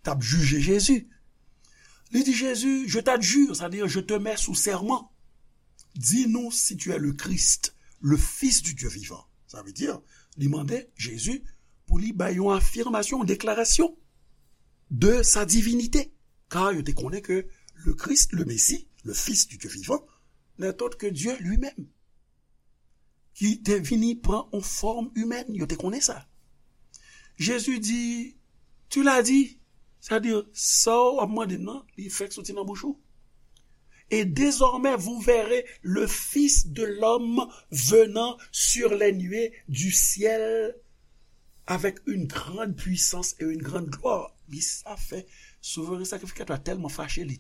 t ap jije Jezi, li di Jezi, je t'adjure, c'est-à-dire je te mets sous serment. Dis-nous si tu es le Christ, le Fils du Dieu vivant. Sa vle di, li mande Jezi pou li bay yon afimasyon, yon deklarasyon de sa divinite. Kar yo te konnen ke le Christ, le Messie, le Fils du Dieu vivant, n'est autre que Dieu lui-même, ki te vini pran yon fòm imèn. Yo te konnen sa. Jezi di, tu l'as dit, sa di, sa w ap mande m nan, li fèk soti nan bouch ou. Et désormais, vous verrez le Fils de l'homme venant sur les nuées du ciel avec une grande puissance et une grande gloire. Li sa fè souveren sakrifikatè a tèlman fache, li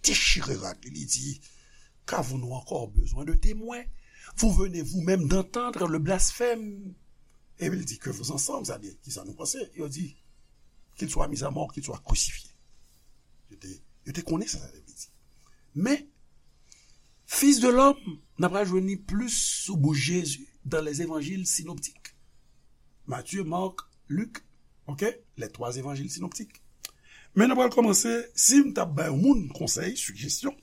dechire rad li, li di, qu'avons-nous encore besoin de témoins? Vous venez vous-même d'entendre le blasphème. Epi li di, que vos ensemble, sa di, kisa nou panse? Yo di, qu'il soit mis à mort, qu'il soit crucifié. Yo te, yo te konnen sa sa te vle di. Men, Fils de l'homme, n ap pral jwenn li plis sou bouch Jezi dans les évangiles synoptiques. Matthieu, Marc, Luc, ok? Les trois évangiles synoptiques. Men n ap pral kòmanse, si m t ap bay yon moun konsèy, sijesyon,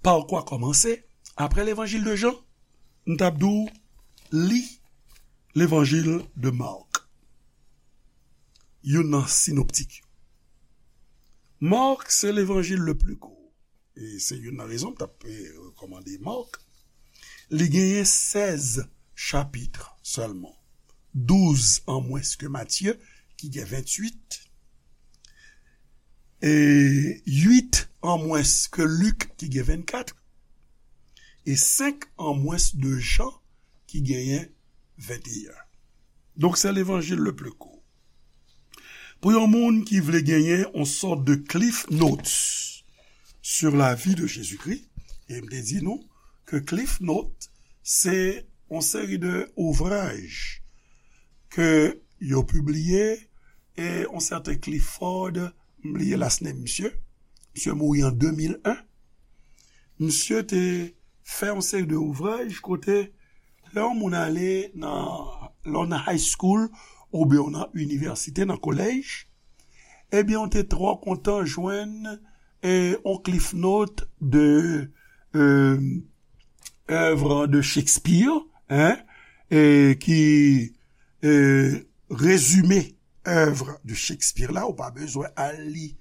pa kwa kòmanse, apre levanjil de Jan, m t ap di w li levanjil de Marc. Youn nan sinoptik yo. Marc, c'est l'évangile le plus court. E se youn nan rezon m t ap, eh, rekòmande Marc. Li genyen sèz chapit sèlman. Douz an mwens ke Matye, ki gen venntuit. E uit an mwens ke Lik, ki gen vennkat. E senk an mwens de Jan, ki genyen venteyen. Donk, se levanjil le pli kou. Pou yon moun ki vle genyen yon sòt de Cliff Notes sur la vie de Jésus-Christ, e m te di nou ke Cliff Notes, se yon seri de ouvraj ke yo pibliye, e yon sèten Clifford, m bliye last name misye, misye mouri an de mil en, misye te fè yon seri de ouvraj kote lè yon moun ale nan, lè w nan high school oubyen w nan inivèsite, nan kolèj, ebyen, w te twò kontan jwenn, e, yon Cliff Note de, e, œuvre de Shakespeare, hein, e, ki, e, rezime œuvre de Shakespeare la, ou pa bezwen al li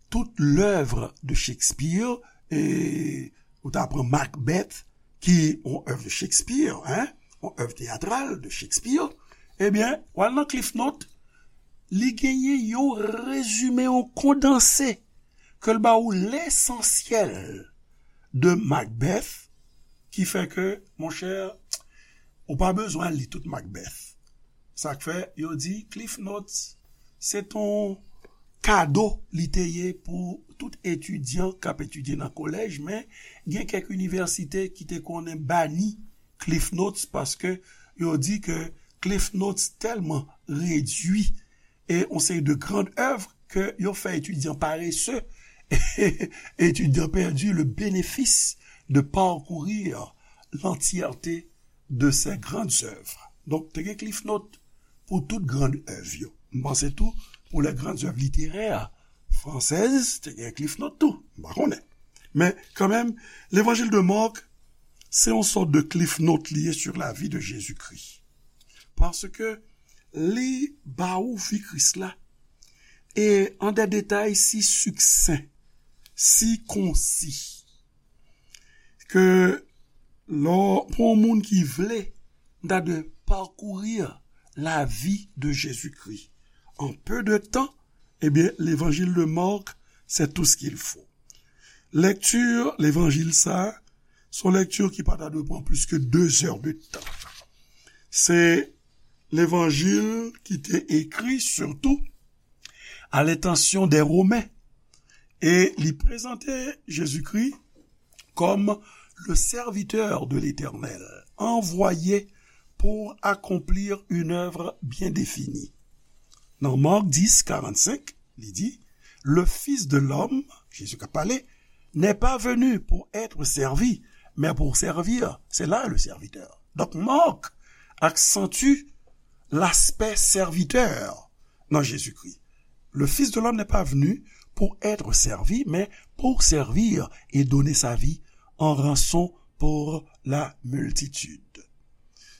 tout l'œuvre de Shakespeare, e ou ta pran Macbeth, ki yon œuvre de Shakespeare, hein, yon œuvre théâtrale de Shakespeare, ebyen, w al nan Cliff Note, li genyen yon rezime, yon kondanse, ke l ba ou lesansyèl de Macbeth, ki fè ke, monchè, ou pa bezwen al li tout Macbeth. Sa k fè, yo di Cliff Notes, se t on kado li te ye pou tout etidyan k ap etidye nan kolèj, men gen kèk inivèsite ki te konnen bani Cliff Notes paske yo di ke Cliff Notes tèlman redui e yon seri de grann èv que yo fè étudiant paresseux, étudiant perdu le bénéfice de parcourir l'entièreté de ses grandes œuvres. Donk, te gen Cliff Note pou tout grann èv yo. M panse tou, pou les grandes œuvres littéraires françaises, te gen Cliff Note tou. M pa konnen. Men, kanmenm, Levanjil de Mark, se yon sòt de Cliff Note li ye sur la vie de Jésus-Christ. Paske li ba ou vi Kris la, e an de detay si siksen, si konsi, ke lè, pou yon moun ki vle, de parcourir la vie de Jésus-Christ en peu de temps, eh bien, l'évangile de Marc, c'est tout ce qu'il faut. Lèkti levanjil sa, se yon lèkti ki pa ta dwe pran plis ke de zè de tan. Se levanjil ki te ekri sitou à l'intention des Romains. E li prezante Jezikri comme le serviteur de l'Éternel, envoyé pour accomplir une œuvre bien définie. Nan Marc dix, quarante-cinq, li di, le Fils de l'homme, Jezi k ap pale, n'est pas venu pour être servi, mais pour servir. C'est là le serviteur. Donc Marc accentue l'aspect serviteur dans Jésus-Christ. Le Fils de l'homme n'est pas venu pour être servi, mais pour servir et donner sa vie en rançon pour la multitude.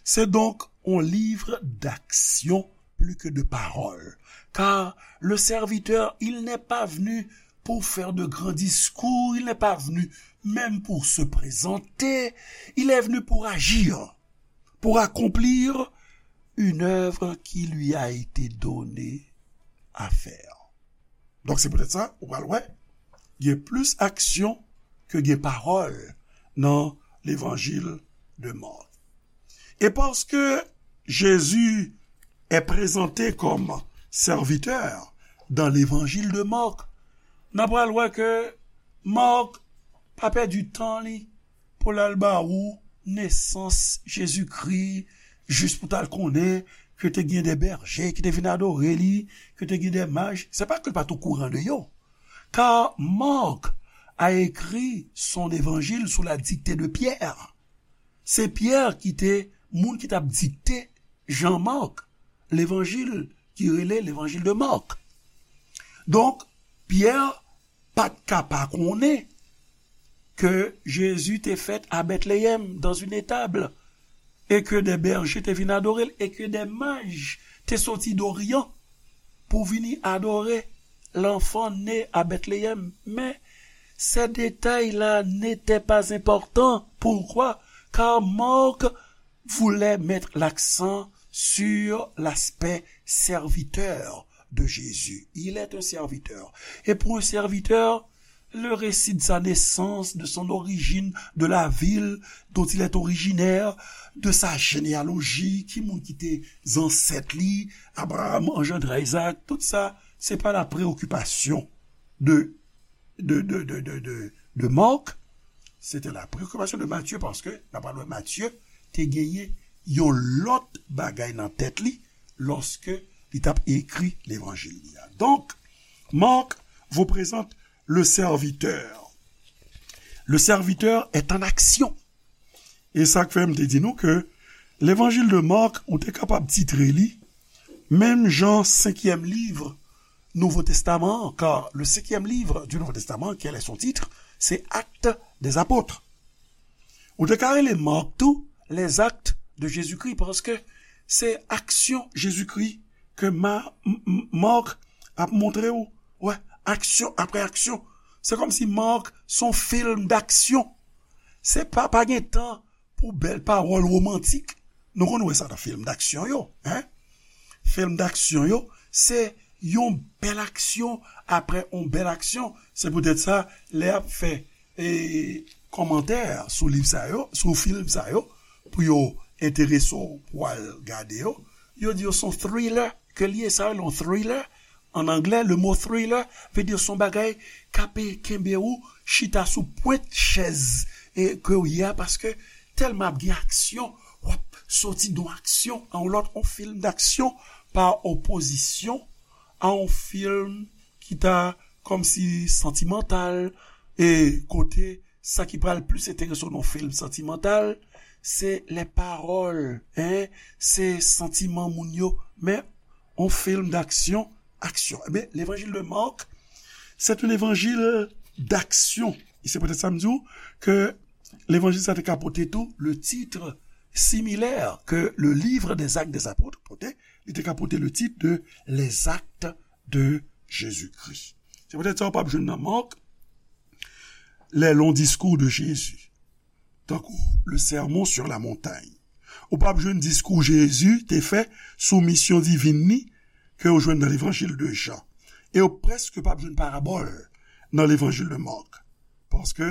C'est donc un livre d'action plus que de paroles, car le serviteur, il n'est pas venu pour faire de grands discours, il n'est pas venu même pour se présenter, il est venu pour agir, pour accomplir une œuvre qui lui a été donnée à faire. Donk se poutèt sa, ou pral wè, gen plis aksyon ke gen pawòl nan levanjil de Mark. Et parce que Jésus est présenté comme serviteur dans l'évangile de Marc, n ap pral wè ke Mark pa pèdi tan li pou l al ba ou nesans Jezikri, jis pou t al konnen ke te gen de bèje ki te vin adore li, ke te gen de maj. Se pa ke l pa t okouran de yo. Car Marc a écrit son évangile sous la dictée de Pierre. Se Pyè ki te moun ki t ap dikte Jan Mark, levanjil ki rele levanjil de Mark. Donk, Pyè pa t ka pa konnen ke Jezi te fèt a Bètleyèm, dans une étable, e ke de bèje te vin adore l, e ke de maj te soti Doryan pou vini adore l'enfant né à Bethléem. Mais ces détails-là n'étaient pas importants. Pourquoi? Car Marc voulait mettre l'accent sur l'aspect serviteur de Jésus. Il est un serviteur. Et pour un serviteur, le récit de sa naissance, de son origine, de la ville dont il est originaire, de sa généalogie, ki moun ki te zansèt li, Abraham engendra Isaac, tout sa, se pa la préoccupation de, de, de, de, de, de, de Marc, c'était la préoccupation de Matthieu, paske, n ap wè Matthieu te genyen yon lòt bagay nan tèt li, lòske li t ap ekri levanjil li a. Donc, Marc vous présente le serviteur. Le serviteur est en action. E sa k fè m te di nou ke levanjil de Marc, ou te kapab titre li, menm jan senkyèm liv Nouvo Testaman an, car le cinquième livre du Nouveau Testament, quel est son titre? C'est Actes des Apôtres. Ou te ka rele Marc tou, les Actes de Jésus-Christ, paske se aksyon Jezikri ke Ma-, M-, M-, Marc ap montre ou. Wè, aksyon apre aksyon. Se kòmsi Marc se yon fim daksyon. Se pa, pa gen tan pou bèl pawòl womantik. Nou konn wè sa nan fim daksyon yo, en? Fim daksyon yo, se yon bèl aksyon apre yon bèl aksyon. Se poutèt sa, lè y ap fè, e, kòmantè sou liv sa yo, sou fim sa yo, pou yo enterese w pou w al gade yo, yo di yo se yon thriller ke l ye, sa yo rele yon thriller. An anglè, le mot thriller vle di se yon bagay k ap kenbe ou chita sou pwent chèz, e, ke w ye a, paske tèlman ap gen aksyon, w ap soti nan yon aksyon a yon lòt, yon fim daksyon, pa opozisyon a yon fim ki ta kòmsi santimantal, e kote sa ki pral plis enterese w nan yon fim santimantal, se lè pawòl, en, se santiman moun yo, men yon fim d'action, action. Ebyen, l'évangile de Marc, c'est un évangile d'action. E se poutèt sa m di w ke levanjil sa te ka pote tou le titre similaire que le livre des Actes des Apôtres pote, li te ka pote le titre de Les Actes de Jésus-Christ. Se poutèt sa w p ap jwenn nan Marc les longs discours de Jésus, tankou le Sermon sur la montagne. Ou p ap jwenn diskou Jezi te fè sou misyon divin li ke w jwenn nan levanjil de Jan. E w prèske p ap jwenn parabòl nan levanjil de Marc. Paske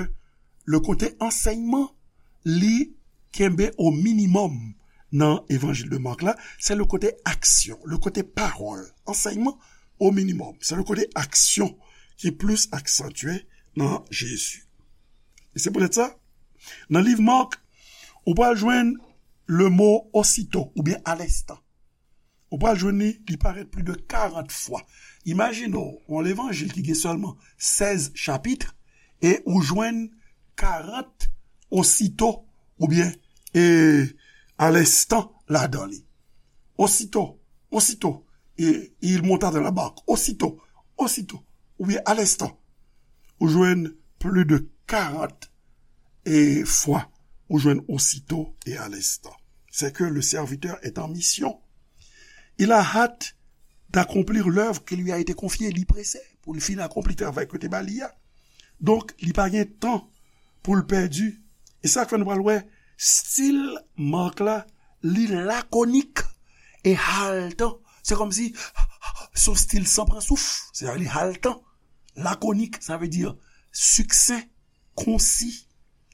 le kote ansèyman, li kenbe o minimòm nan evanjil de Marc la, se le kote aksyon, le kote pawòl. Ansèyman o minimòm, se le kote aksyon ki plis aksantye nan Jezi. E se poutèt sa, nan liv Marc, ou pral jwenn le mo osito oubyen alenstan. Ou pral jwenn li, li parèt plis de karant fwa. Imajine w, yon levanjil ki gen sèlman sèz chapit, e ou jwenn karant osito, oubyen, e, alenstan ladan li. Osito, osito, e, il monta dans la barque. Osito, osito, oubyen alenstan. Ou jwenn plis de karant e fwa, ou jwenn osito e alenstan. C'est que le serviteur est en mission. Il a hâte d'accomplir l'œuvre qui lui a été confiée. Li prese pou l fin akonpli travay ke te ba li a. Donk, li pa gen tan pou l pèdi. E sa k fè nou pral wè stil Marc la, li lakonik e haletan. Se kòmsi se yon stil san pran souf. Se li haletan. Lakonik, sa vle di succinct, concis.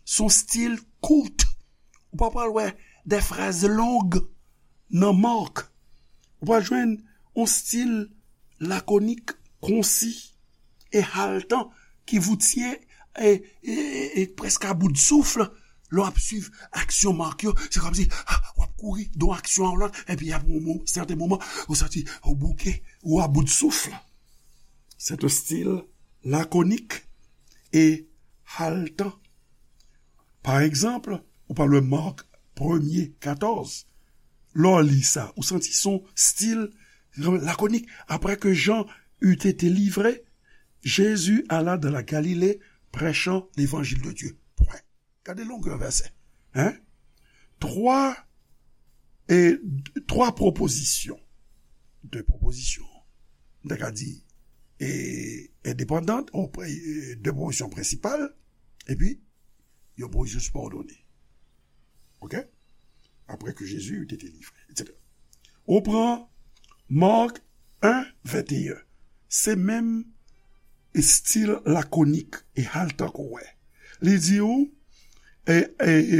Se yon stil kout. Ou pa pral wè de fraz long nan Marc. Ou pral jwenn yon stil lakonik, konsi e haletan ki voutye e, e, e, e prèske a bout souf. Lè w ap swiv aksyon Marc yo, se kòmsi, ah, w ap kouri de yon aksyon a yon lòt, epi apre yon mo-, sèten moman, ou santi ou bouke, ou a bout souf. C'est un style laconique et haletant. Pa egzanp, ou pral wè Marc premye katòz. Lè w li sa, ou santi se yon stil lakonik. Après que Jean eut été livré, Jésus alla dans la Galilée prêchant l'évangile de Dieu. Pwen. Gade longè vèsè. Hein? Twa, e, twa pwopozisyon. De pwopozisyon, m ta ka di, e, endepandan, ou pre-, e, de pwopozisyon prensipal, epi yon pwopozisyon sibòdone. Oke? Après que Jésus eut été livré, et cetera. Ou pran Marc un, vingt et un. Se menm estil lakonik e haletan ke w wè. Li di w, e, e, e,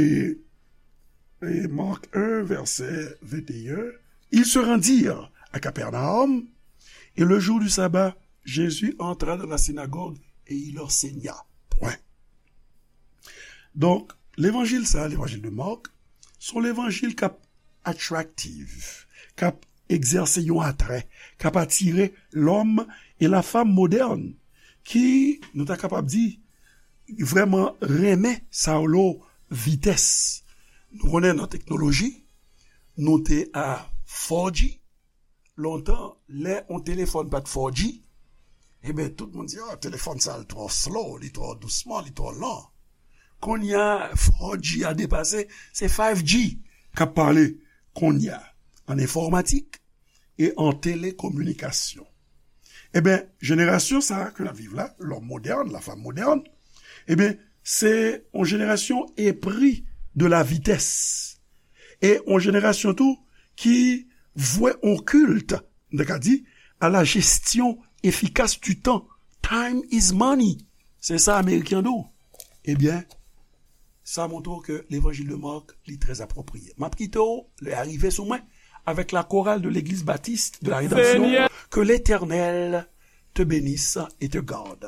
e Marc un, verset vingt et un, ils se rendirent à Capernaum, et le jour du sabbat, Jésus entra dans la synagogue et il enseigna. Pwen. Donk, levanjil sa, levanjil de Marc, se yon levanjil k ap attractive, k ap egzèse yon atrè, k ap atire lòm e lafanm modèn, ki, nou ta kapab di, vrèman renmen sa yo lo vitès. Nou konnen nan teknoloji, nou te a four G, lontan, lè yon telefòn pa t four G, ebyen, tout moun di, "Ah, telefòn sa, l twò slow, li twò dousman, li twò lan." Kounye a, four G a depase, se five G k ap pale kounye a, an enfòmatik e an telekominikasyon. Ebyen, jenerasyon sa a ke n ap viv la, lòm modèn, lafanm modèn, ebyen, se yon jenerasyon épris de la vitès. E yon jenerasyon tou ki vwe yon kilt, m ta ka di, à la gestion efficace du temps. Time is money. Se sa Ameriken di w. Ebyen, sa montre w ke levanjil de Marc, li trè apwopriye. M ap kite w, lè a rive sou mwen, avec la chorale de l'église baptiste de la Rédemption. Seigneur. Que l'Éternel te bénisse et te garde.